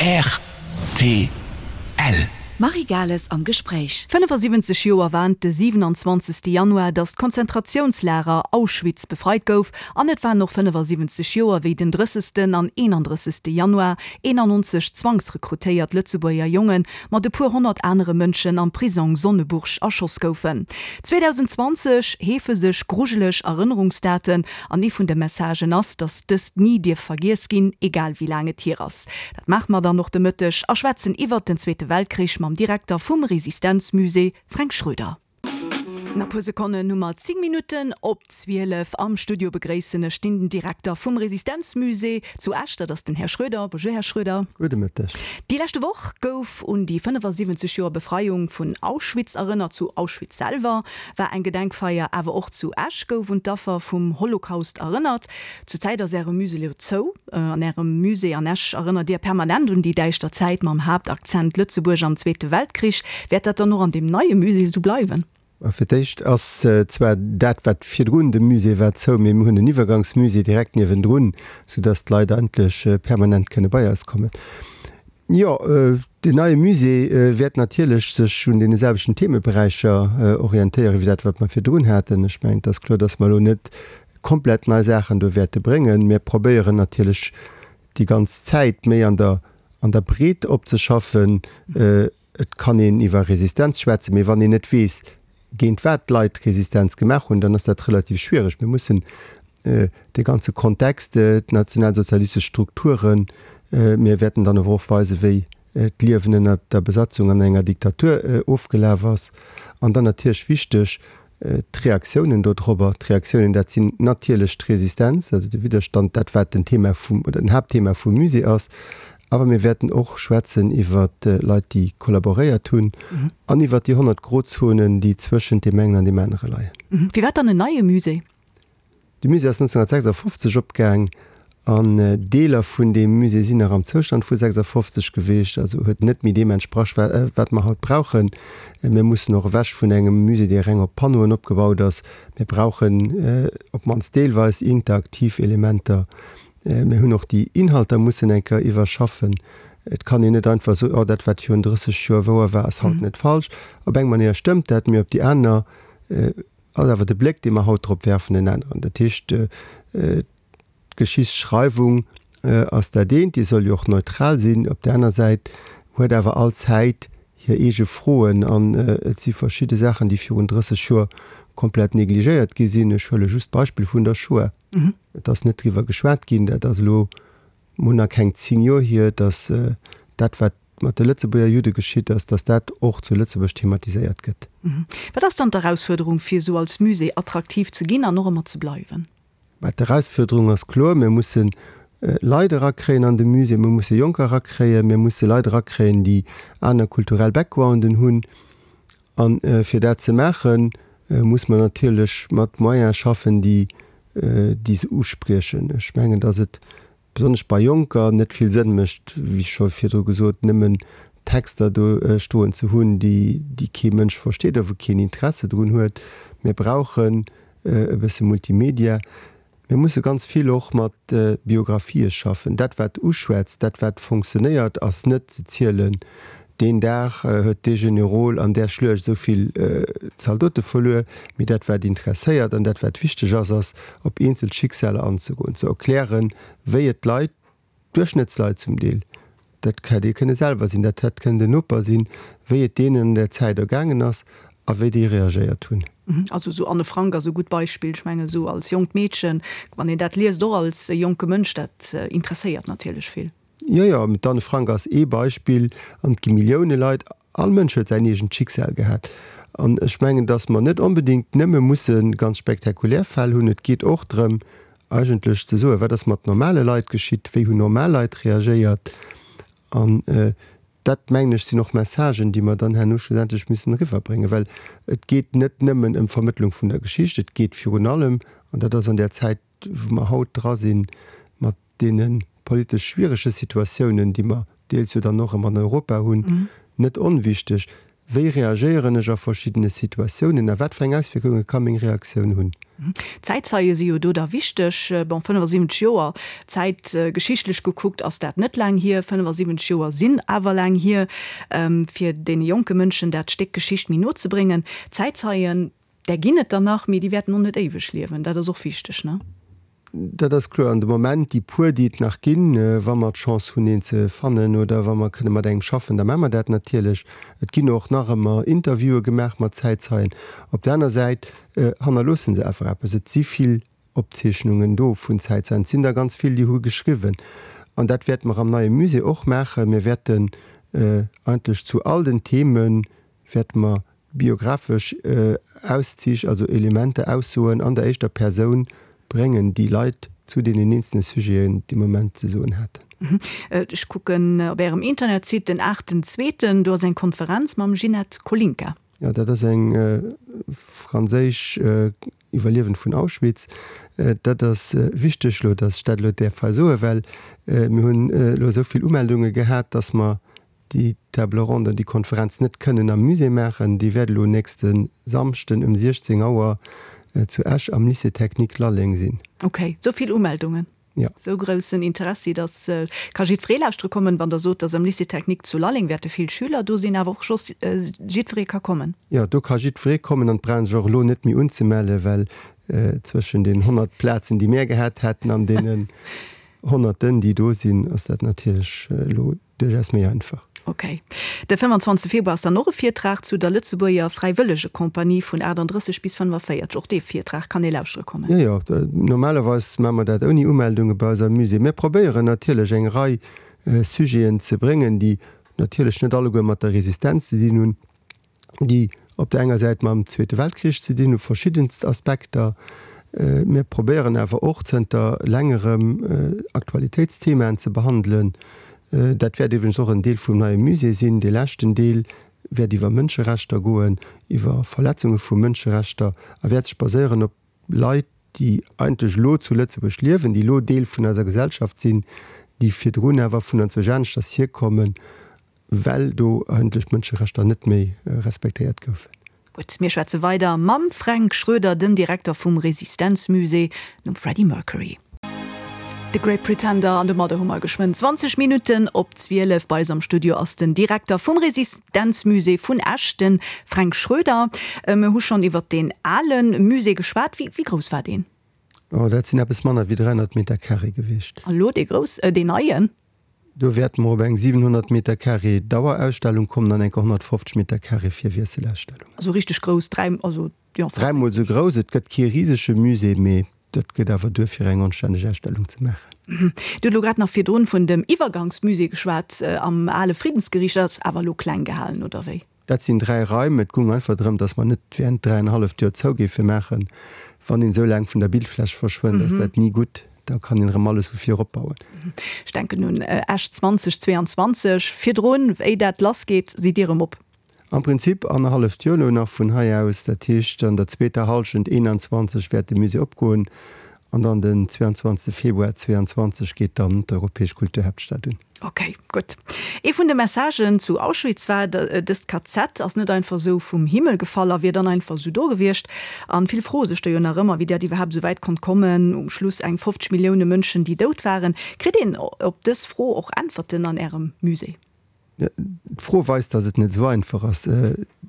Rtl. D'Marie Gales am Gespréich. 75 Joer war et de 27 Januar, datt d'Konzentratiounslager Auschwitz befreit gouf an et waren och 75 Joer, wéi den 30. an 31. Januar 91 zwangsrekrutéiert Lëtzebuerger Jonge mat e puer honnert anere Mënschen am Prisong Sonneburg erschoss goufen. 2020 heefe sech grujeleg Erënnerungsdaten An ee vun de Messagen ass, dass dëst ni dierf vergiess ginn, egal wéi laang et hier ass. Dat maache mer dann och de Mëtteg a schwätzen iwwert den Zweete Weltkrich mam Direkter vum Resistenzmusée Fränk Schroeder. A puer Sekonnen hu mer 10 Minutten op 12. Am Studio begréissen ech den Direkter vum Resistenzmusée zu Esch, dat ass den Här Schroeder. Bonjour, Här Schroeder. Gudde Mëtteg. Déi leschte Woch gouf un déi 75 Joer Befreiung vun Auschwitz erënnert. Zu Auschwitz selwer war eng Gedenkfeier, awer och zu Esch gouf un d'Affer vum Holocaust erënnert. Zur Zäit ass Äre Musée elo zou. An Ärem Musée an Esch erënnert Dir permanent un déi däischter Zäit mam Haaptakzent Lëtzebuerg am Zweete Weltkrich. Wäert dat dann och an deem neie Musée esou bleiwen? Fir d'éischt ass zwar dat, wat virdrun de Musée war, zou, mee mir hunn en Iwwergangsmusée direkt niewendrun, soudass d'Leit eigentlech permanent kënne bei eis kommen. Jo, deen neie Musée wäert natierlech sech un deene selwechten Themeberäicher orientéieren, wéi dat, wat mer virdrun haten. Ech mengen, et ass kloer, dass mer elo net komplett nei Saachen do wäerte bréngen. Mir probéieren natierlech déi ganz Zäit méi an der, an der Breet opzeschaffen. Et kann een iwwer Resistenz schwätzen, mee wann een net weess, géint wat d'Leit Resistenz gemaach hunn, dann ass dat relativ schwiereg. Mir mussen de ganze Kontext, d'nationalsozialistesch Strukturen, mir wäerten dann awer och weisen, wéi d'Liewen ënnert der Besatzung an enger Diktatur ofgelaf ass. An dann natierlech wichteg, D'Reaktiounen dodrobber, d'Reaktiounen, dat sinn natierlech d'Resistenz, also de Widderstand, dat wat den Thema vum, oder den Haaptthema vum Musée ass. Awer mir wäerten och schwätzen iwwer Leit, déi kollaboréiert hunn an iwwer déi 100 Grozonen, déi zwëschent deem engen an deem anere leien. Firwat dann en neie Musée? De Musée ass 1956 opgaang an Deeler vun deem Musée sinn nach am Zoustand vu 56 geweecht, also huet net méi deem entsprach, wat mer haut brauchen. Mir mussen och ewech vun engem Musée, dee reng op Panneauen opgebaut ass. Mir brauchen op d'mannst deelweis interaktiv Elementer. Mir hunn och déi Inhalter mussen eng Kéier iwwerschaffen. Et kann een net einfach soen, oh dat wat virun 30 Joer wouer war, ass haut net falsch. Op eng Manéier stëmmt dat, mee op déi aner Ass awer de Bléck, dee mer haut drop werfen, en aneren. Dat heescht, d'Geschichtsschreiwung ass dat eent, déi soll jo och neutral sinn. Op där aner Säit huet awer all Zäit hir eege Froen an et si verschidde Saachen, déi virun 30 Joer komplett negligéiert gi sinn. Ech huele just d'Beispill vun der Shoah. Et ass net driwwer geschwat ginn. Dat ass elo mol nach keng 10 Joer hier, datt dat, wat mat de Lëtzebuerger Judde geschitt ass, datt dat och zu Lëtzebuerg thematiséiert gëtt. Wat ass dann d'Erausfuerderung, fir esou als Musée attraktiv ze ginn an och ëmmer ze bleiwen? Mä d'Erausfuerderung ass kloer, Mir musse Leit erakréien an de Musée, mir musse Jonker erakréien, mir musse Leit erakréien, déi aner kulturell Backgrounden hunn. A fir dat ze maachen, muss mer natierlech mat Moyene schaffen, déi déi se uspriechen. Ech mengen, datt et besonnesch bei Jonker, net vill Sënn mécht, wéi scho virdru gesot, nëmmen Texter do stoen ze hunn, déi déi kee Mënsch versteet a wou keen Interesse drun huet. Mir brauchen e bësse Multimedia. Mir musse ganz vill och mat Biographië schaffen. Dat wat uschwätzt, dat wat fonctionnéiert, ass net ze zielen, Deen Dag huet dee Generol an där Schluecht esou vill Zaldote verluer. Mee dat wat interesséiert an dat wat wichteg ass, ass op eenzel Schicksaler anzegoen, ze erklären, wéi et d'Leit, d'Duerchschnëttsleit zum Deel, dat hätt ee kënne selwer sinn, dat hätt kënnen den Noper sinn, wéi et deenen an där Zäit ergaangen ass a wéi déi reagéiert hunn. Also esou Anne Frank ass e gutt Beispill. Ech mengen esou als jonkt Meedchen, wann een dat liest, och als jonke Mënsch, dat interesséiert natierlech vill. Jo, jo, d'Anne Frank ass ee Beispill an et gi Millioune Leit. All Mënsch huet säin eegent Schicksal gehat. An ech mengen, datt mer net onbedéngt nëmme musse ganz spektakulär Fäll hunn. Et geet och drëm, eigentlech ze soen, wat ass mat normale Leit geschitt, wéi hunn normal Leit reagéiert. An dat, mengen ech, sinn och Messagen, déi mer dann herno schlussendlech müssen eriwwerbréngen, well et geet net nëmmen ëm d'Vermëttlung vun der Geschicht, et geet virun allem, an dat ass an där Zäit, wou mer haut dra sinn, mat deene politesch schwierege Situatiounen, déi mer deels jo dann och erëm an Europa hunn, net onwichteg, Wéi reagéieren ech a verschiddene Situatiounen a wat fir eng Auswierkunge ka meng Reaktioun hunn? Zäitzeie si jo do da wichteg. Bon, 75 Joer, zäitgeschichtlech gekuckt ass dat net laang hier. 75 Joer sinn awer laang hier, fir deene jonke Mënschen dat Stéck Geschicht méi no ze bréngen. Zäitzeien, där ginn et der nach, mee déi wäerten och net éiweg liewen. Dat ass och wichteg, ne? Dat ass kloer. An de Moment, déi puer, déi et nach ginn, wa mer d'Chance hunn, een ze fannen oder wa mer kënne mat engem schaffen, da maache mer dat natierlech. Et ginn och nach ëmmer Interviewe gemaach mat Zäitzeien. Op der aner Säit hannerloosse se awer eppes. Et si vill Opzeechnungen do vun Zäitzeien. Et sinn der ganz vill, déi hu geschriwwen. An dat wäerte mer am neie Musée och maachen. Mir wäerten eigentlech zu all den Themen, wäerte mer biographesch Auszich, also Elementer, Aussoen an der éischter Persoun bréngen, déi Leit zu deenen eenzelne Sujeten dee Moment ze soen haten. Ech kucken op Ärem Internetsite, den aachten zweeten, do ass eng Konferenz mam Ginette Kolinka. Jo, dat ass eng franséisch Iwwerliewend vun Auschwitz. Dat ass wichteg elo, datt ech dat elo däerf hei soen, well mir hunn elo esou vill Umeldunge gehat, datt mer déi Table ronde, déi Konferenz net kënnen am Musée maachen. Déi wäert elo nächste Samschden um 16 Auer zu Esch am Lycée Technique Lalleng sinn. Ok, sou vill Umeldungen, Jo. sou groussen Interessi, dass ka jiddweree lauschtere kommen. Wann Der sot, dass am Lycée Technique zu Lalleng wäerte vill Schüler do sinn, awer och soss jiddweree ka kommen. Jo, do ka jiddweree kommen an et brauch een sech och elo net méi unzemellen, well zwëschen den 100 Plazen, déi mär gehat hätten an deenen Honnerten, déi do sinn, ass dat natierlech elo Duerchaus méi einfach. Ok. De 25 Februar ass dann och e Virtrag zu der Lëtzebuerger Fräiwëllegekompanie vun 38 bis 45. Och dee Virtrag kann ee lauschtere kommen. Jo, jo. Normalerweis maache mer dat ouni Umeldunge bei eis am Musée. Mir probéieren natierlech eng Rei Sujeten ze bréngen, déi natierlech net alleguer mat der Resistenz ze dinn hunn. déi op der enger Säit mam Zweete Weltkrich ze dinn hu, verschiddenst Aspekter. Mir probéieren awer och zënter längerem Aktualitéitsthemaen ze behandelen. Dat wäert iwwregens och en Deel vum neie Musée sinn. Dee leschten Deel wäert iwwer Mënscherechter goen, iwwer Verletzunge vu Mënscherechter a wäert sech baséieren op Leit, déi eigentlech elo zu Lëtzebuerg liewen, déi elo Deel vun eiser Gesellschaft sinn, déi virdrun awer vun anzwousch aneschters hierkommen, well do eigentlech d'Mënscherechter net méi respektéiert goufen. Gutt, mir schwätze weider mam Fränk Schroeder, dem Direkter vum Resistenzmusée, nom Freddie Mercury. The Great Pretender an domadder hu mer geschwënn 20 Minutten op 12. Bei eis am Studio ass den Direkter vum Resistenzmusée vun Esch, de Fränk Schroeder. Mir hu schonn iwwert deen ale Musée geschwat. Wéi grouss war deen? Oh, dat sinn eppes manner wéi 300 Meter carré gewiescht. An elo dee grouss, deen neien? Do wäerte mer op eng 700 Meter carré Dauerausstellung kommen an enker 150 Meter carré fir Wiesselausstellungen. Also richteg grouss, dräi, also jo. Dräimol esou grouss. Et gëtt kee risege Musée, mee dat gëtt awer duer fir eng anstänneg Ausstellung ze maachen. Dir hutt elo grad nach virdrun vun dem Iwwergangsmusée geschwat am ale Friddensgeriicht. Dat ass awer elo kleng gehalen, oder wéi? Dat sinn 3 Raim. Et goung einfach drëm, datt mer net während dräienhalleft Joer zou géife maachen. Wann een esou laang vun der Bildfläch verschwënnt, ass dat ni gutt. Da kann een erëm alles vu vir opbauen. Ech denken un Esch 2022. Virdrun, wéi dat lassgeet, sidd Dir erëm op. Am Prinzip annerhalleft Joer elo nach vun hei aus. Dat heescht, an der zweeter Hallschent 21 wäert de Musée opgoen an dann den 22 Februar 22 geet dann d'Europäesch Kulturhaaptstad un. Ok, gutt. Ee vun de Messagen zu Auschwitz war, dëst KZ ass net einfach esou vum Himmel gefall a wier dann einfach esou do gewiescht. An vill froe sech do jo nach ëmmer, wéi dat iwwerhaapt esou wäit konnt kommen, um Schluss eng 50 Millioune Mënschen, déi dout waren. Kritt een op dës Fro och Äntwerten an Ärem Musée? D'Fro weist, datt et net esou einfach ass.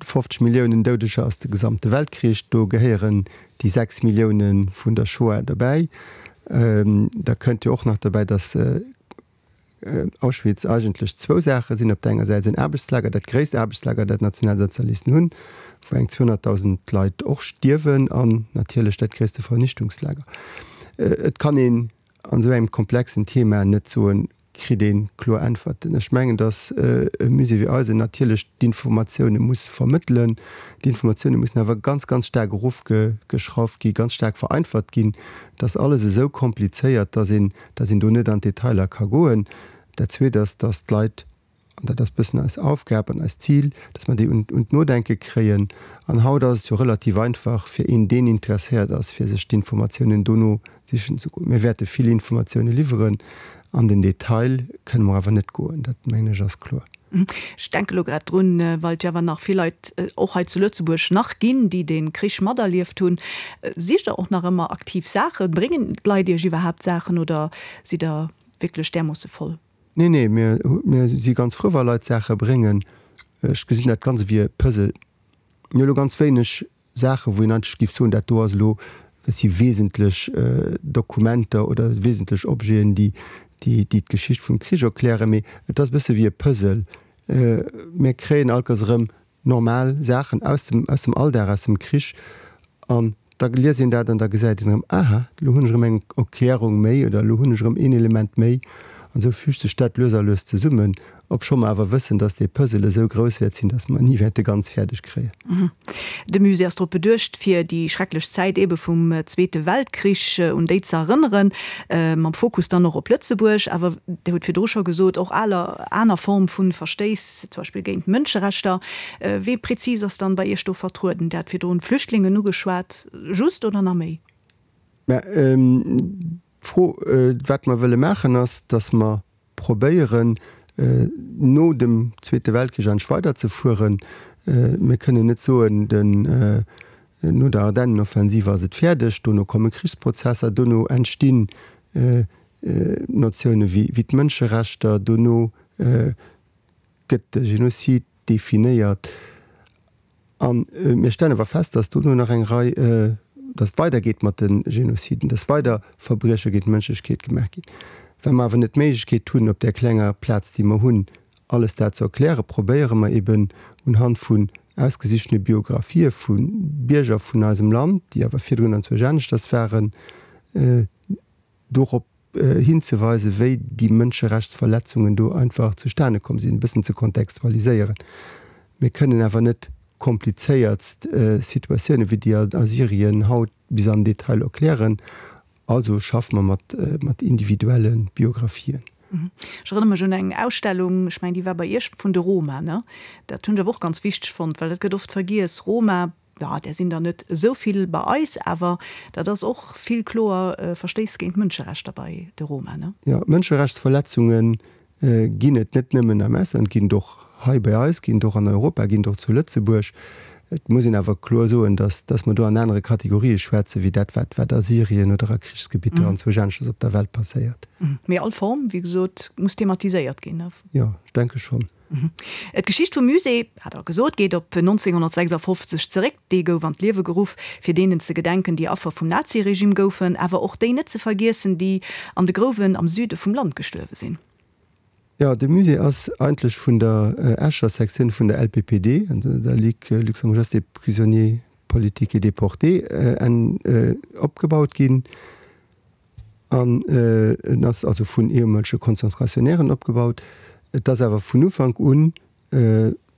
50 Milliounen Doudeger ass de gesamte Weltkrich. Do gehéieren déi 6 Millioune vun der Shoah dobäi. Da kënnt jo och nach dobäi, datt Auschwitz eigentlech zwou Saache sinn, Op der enger Säit en Aarbechtslager, dat gréisst Aarbechtslager, dat d'Nationalsozialisten hunn, wou eng 200.000 Leit och stierwen, an natierlech dat gréisste Vernichtungslager. Et kann een an esou engem komplexen Thema net soen, kritt ee kloer Äntwerten. Ech mengen, datt e Musée wéi eisen natierlech d'Informatioune muss vermëttelen. D'Informatioune mussen awer ganz, ganz staark erofgeschrauft ginn, ganz staark vereinfacht ginn. Et ass alles esou komplizéiert, datt een, datt een do net an d'Detailer ka goen. Dat Zweet ass, datt d'Leit, an dat ass e bëssen eis Aufgab an eist Zil, datt mer déi un d'Nodenke kréien. An haut ass et jo relativ einfach fir een, deen interesséiert ass, fir sech d'Informatiounen dono sichen ze goen. Mir wäerte vill Informatioune liwweren, an den Detail kënne mer awer net goen, dat mengen ech ass kloer. Ech denke elo grad drun, well et jo awer nach vill Leit och hei zu Lëtzebuerg nach ginn, déi dee Krich materlieft hunn. Sicht Der och nach ëmmer aktiv Saachen? Bréngen d'Leit Iech iwwerhaapt Saachen oder sidd Der wierklech därmoosse voll? Nee, nee, mir, mir si ganz frou, wa Leit Saache bréngen. Ech gesinn dat Ganze wéi e Puzzle. Mir hu elo ganz wéineg Saachen, wou een eigentlech géif soen, dat do ass elo, dat si wesentlech Dokumenter oder wesentlech Objeten, déi, déi, déi d'Geschicht vum Krich erklären. Mee et ass e bësse wéi e Puzzle. Mir kréien allkéiers erëm normal Saachen aus dem, aus dem Alldag, aus dem Krich an da liest een dat an da gesäit een erëm, aha, elo hunn ech erëm eng Erklärung méi oder elo hunn ech erëm een Element méi an esou füügt sech dat lues a lues zesummen, obscho mer awer wëssen, dass dee Puzzle esou grouss wäert sinn, dass mer en ni wäerte ganz fäerdeg kréien. De Musée ass drop beduecht, fir déi schrecklech Zäit eebe vum Zweete Weltkrich, un déi ze erënneren, mam Fokus dann och op Lëtzebuerg. Awer Dir hutt virdru scho gesot, och aler aner Form vu Verstéiss, zum Beispill géint d'Mënscherechter. Wee prezis ass dann bei Iech do vertrueden? Dir hat virdrun d'Flüchtlingen ugeschwat. Just oder nach méi? Mä d'Fro, wat mer wëlle maachen, ass, datt mer probéieren, no dem Zweete Weltkrich eigentlech weiderzefueren. Mir kënnen net soen, den, no der Ardennenoffensiv ass et fäerdeg, dono komme Krichsprozesser, dono entstinn Notioune wéi d'Mënscherechter, dono gëtt de Genozid definéiert. A mir stellen awer fest, dass dono nach eng Rei, dass et weidergeet mat de Genoziden, dass weider Verbrieche géint d'Mënschlechkeet gemaach ginn. Well mer awer net d'Méiglechkeet hunn, op där klenger Plaz, déi mer hunn, alles dat ze erklären, probéiere mer eben unhand vun ausgesichtene Biografië vu Bierger vun eisem Land, déi awer virdrun anzwousch aneschters waren, dorop hinzeweisen, wéi déi Mënscherechtsverletzungen do einfach zustane komm sinn, e bëssen ze kontextualiséieren. Mir kënnen awer net komplizéiertst Situatiounen, wéi déi a Syrien haut, bis an den Detail erklären. Also schaffe mer mat, mat individuelle Biographien. Ech erënnere mech un eng Ausstellung, ech mengen, déi war bei Iech, vun de Roma, ne? Dat hunn ech awer och ganz wichteg fonnt, well dat gëtt oft vergiess, Roma, Jo, där sinn der net esou vill bei eis, awer dat ass och vill kloer Verstéiss géint d'Mënscherechter bei de Roma, ne? Jo, Mënscherechtsverletzunge ginn et net nëmmen am Ausland, ginn et och hei bei eis, ginn et och an Europa, ginn et och zu Lëtzebuerg. Et muss een awer kloer soen, dass, dass mer do an anere Kategorië schwätzen, wéi dat, wat, wat a Syrien oder a Krichsgebitter anzwousch aneschters op der Welt passéiert. Mee all Form, wéi gesot, muss thematiséiert ginn, ne? Jo, ech denke schonn. D'Geschicht vum Musée, hat Der gesot, geet op 1956 zeréck. Dee gouf an d'Liewe geruff, fir deenen ze gedenken, déi Affer vum Naziregime goufen, awer och déi net ze vergiessen, déi an de Grouwen am Süde vum Land gestuerwe sinn. Jo, de Musée ass eigentlech vun der Escher Sektioun vun der LPPD, der Ligue luxembourgeoise des prisonniers politiques et déportés, opgebaut ginn. An en ass also vun ehemolege Konzentrationnairen opgebaut. Et ass awer vun Ufank un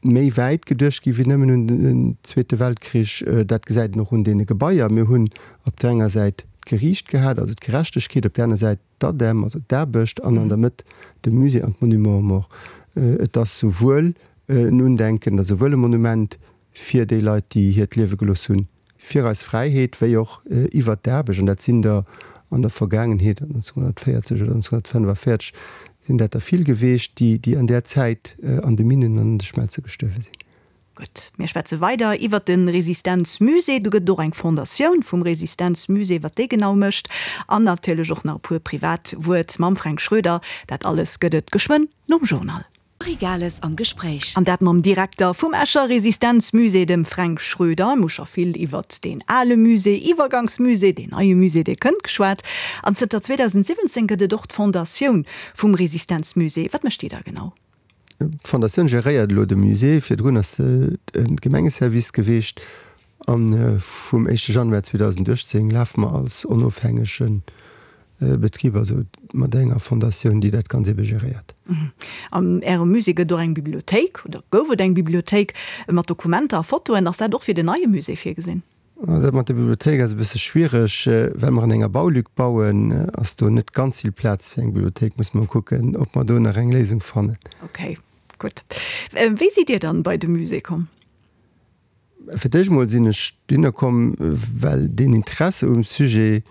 méi wäit geduecht gi wéi nëmmen un den Zweete Weltkrich. Dat gesäit een och un deene Gebaier. Mir hunn op där enger Säit d'Geriicht gehat, also d'Gerechtegkeet, op där aner Säit d'ADEM, also d'Aarbecht, an an der Mëtt de Musée an d'Monuments aux morts. Et ass souwuel en Undenken, et ass souwuel e Monument fir déi Leit, déi hiert Liewe gelooss hunn fir eis Fräiheet, wéi och iwwert d'Aarbecht, an dat sinn der an der Vergaangenheet, 1940 oder 1945 sinn dat der vill geweecht, déi, déi an där Zäit an de Minnen an an de Schmelze gestuerwe sinn. Gutt, mir schwätze weider iwwert de Resistenzmusée. Do gëtt et och eng Fondatioun vum Resistenzmusée, wat déi genau mécht an natierlech och nach e puer privat Wuert mam Fränk Schroeder. Dat alles gëtt et geschwënn nom Journal. Marie Gales am Gespréich. An dat mam Direkter vum Escher Resistenzmusée, dem Fränk Schroeder. Mir hu scho vill iwwert deen ale Musée, Iwwergangsmusée, deen neie Musée, dee kënnt, geschwat. An zënter 2017 gëtt et och d'Fondatioun vum Resistenzmusée. Wat mécht déi da genau? D'Fondatioun geréiert elo de Musée. Virdrun ass se e Gemengeservice geweecht. A vum éischte Januar 2018 lafe mer als onofhängege Betrib, also mat enger Fondatioun, déi dat Ganz ebe geréiert. An Ärem Musée gëtt et och eng Bibliothéik, oder gouf et eng Bibliothéik mat Dokumenter a Fotoen. Ass dat och fir den neie Musée virgesinn? Dat mat der Bibliothéik ass e bësse schwiereg. Well mer an enger Baulück bauen, ass do net ganz vill Plaz fir eng Bibliothéik. Musse mer kucken, ob mer do nach eng Léisung fannen. Ok, gutt. Wéi sidd Dir dann bei de Musée komm? Fir d'éischt mol sinn ech dohinner komm, well deen Interesse um Sujet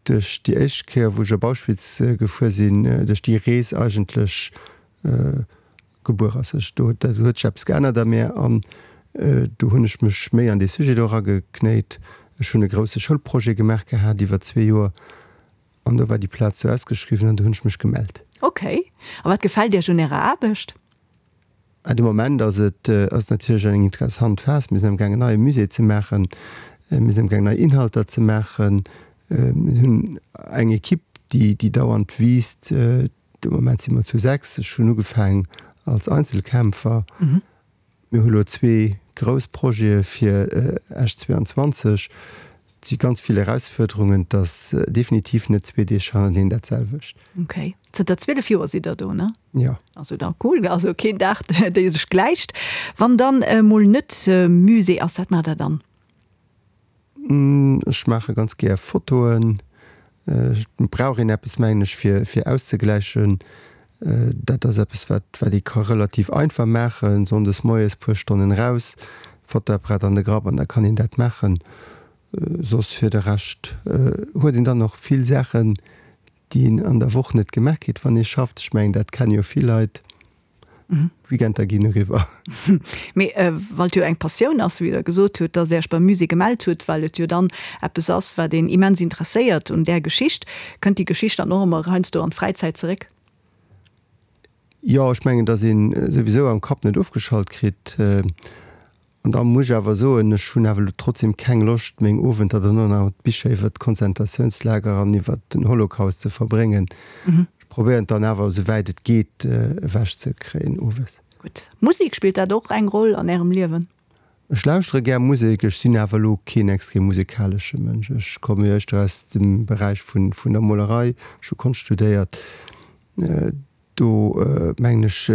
duerch déi éischt Kéier, wou ech op Auschwitz gefuer sinn, duerch déi Rees eigentlech. gebuer ass. Ech, do huet sech eppes geännert a mär an do hunn ech mech méi an dee Sujet do erageknéit. Ech hunn e grousse Schoulprojet gemaach gehat iwwer zwee Joer an do war déi Plaz do ausgeschriwwen an do hunn ech mech gemellt. Ok. A wat gefält Iech un Ärer Aarbecht? De Moment ass et ass et natierlech eng interessant Phas. Mir sinn amgaang en neie Musée ze maachen, mir sinn amgaang nei Inhalter ze maachen. Mir hunn eng Equipe, déi déi dauernd wiisst. De Moment si mer zu 6. Ech hunn ugefaangen als Einzelkämpfer. Mir hu lo zwee grouss Projete fir Esch 22. Et si ganz vill Erausfuerderungen. Et ass definitiv net zwee Deeg hannerteneen dat selwecht. Ok. Zënter 12 Joer sidd Der do, ne? Jo. Also da cool. Also keen Dag, dee sech gläicht. Wann dann emol net Musée ass, wat maacht Der dann? Ech maache ganz gär Fotoen. Et brauch een eppes, mengen ech, fir fir auszegläichen. Dat ass eppes, wat wat ee ka relativ einfach maachen, sonndes moies puer Stonnen raus, Fotoapparat an de Grapp an da kann een dat maachen. Soss fir de Rescht huet een dann och vill Saachen, déi een an der Woch net gemaach kritt, wann ee schafft. Ech mengen, dat kenne jo vill Leit. D'Weekender ginn eriwwer. Mee well et jo eng Passioun ass, wéi Der gesot hutt, dass Äech beim Musée gemellt hutt, well et jo dann eppes ass, wat een immens interesséiert un där Geschicht, kënnt déi Geschicht dann och ëmmer heiansdo an d'Fräizäit zeréck? Jo, ech mengen, dass ee souwisou am Kapp net ofgeschalt kritt. An da muss ech awer soen, ech hunn awer elo trotzdem keng Loscht, meng Owenter dann och nach mat Bicher iwwert d'Konzentratiounslager an iwwert den Holocaust ze verbréngen. Ech probéieren et dann awer, esou wäit et geet, ewech ze kréien owes. Gutt. Musek, spillt dat och eng Roll an Ärem Liewen? Ech lauschtere gär Musek, ech sinn awer elo keen extrem musekalesche Mënsch. Ech komme jo éischter aus dem Beräich vun der Molerei, ech hu Konscht studéiert. Do mengen ech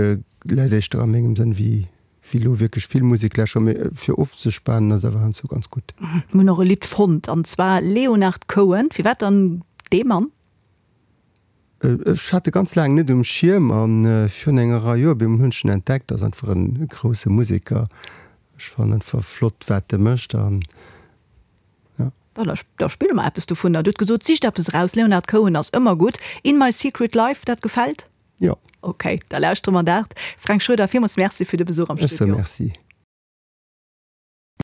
läit éischter a mengem Sënn wéi elo wierklech vill Musek lauschteren, mee fir ofzespanen ass et awer heiansdo ganz gutt. Mir hunn och e Lidd fonnt, an zwar Leonard Cohen. Firwat dann dee Mann? Ech hat e ganz laang net um Schierm a virun enger Rei Joer op eemol hunn ech en entdeckt. Ass einfach e grousse Museker. Ech fannen einfach flott wat e mécht an jo. Da spille mer eppes dovunner. Dir hutt gesot, sicht eppes eraus. Leonard Cohen ass ëmmer gutt. In my secret life, dat gefält? Jo. Ok, da lauschtere mer dat. Fränk Schroeder, villmools Merci fir de Besuch am Studio. Ech soe Merci.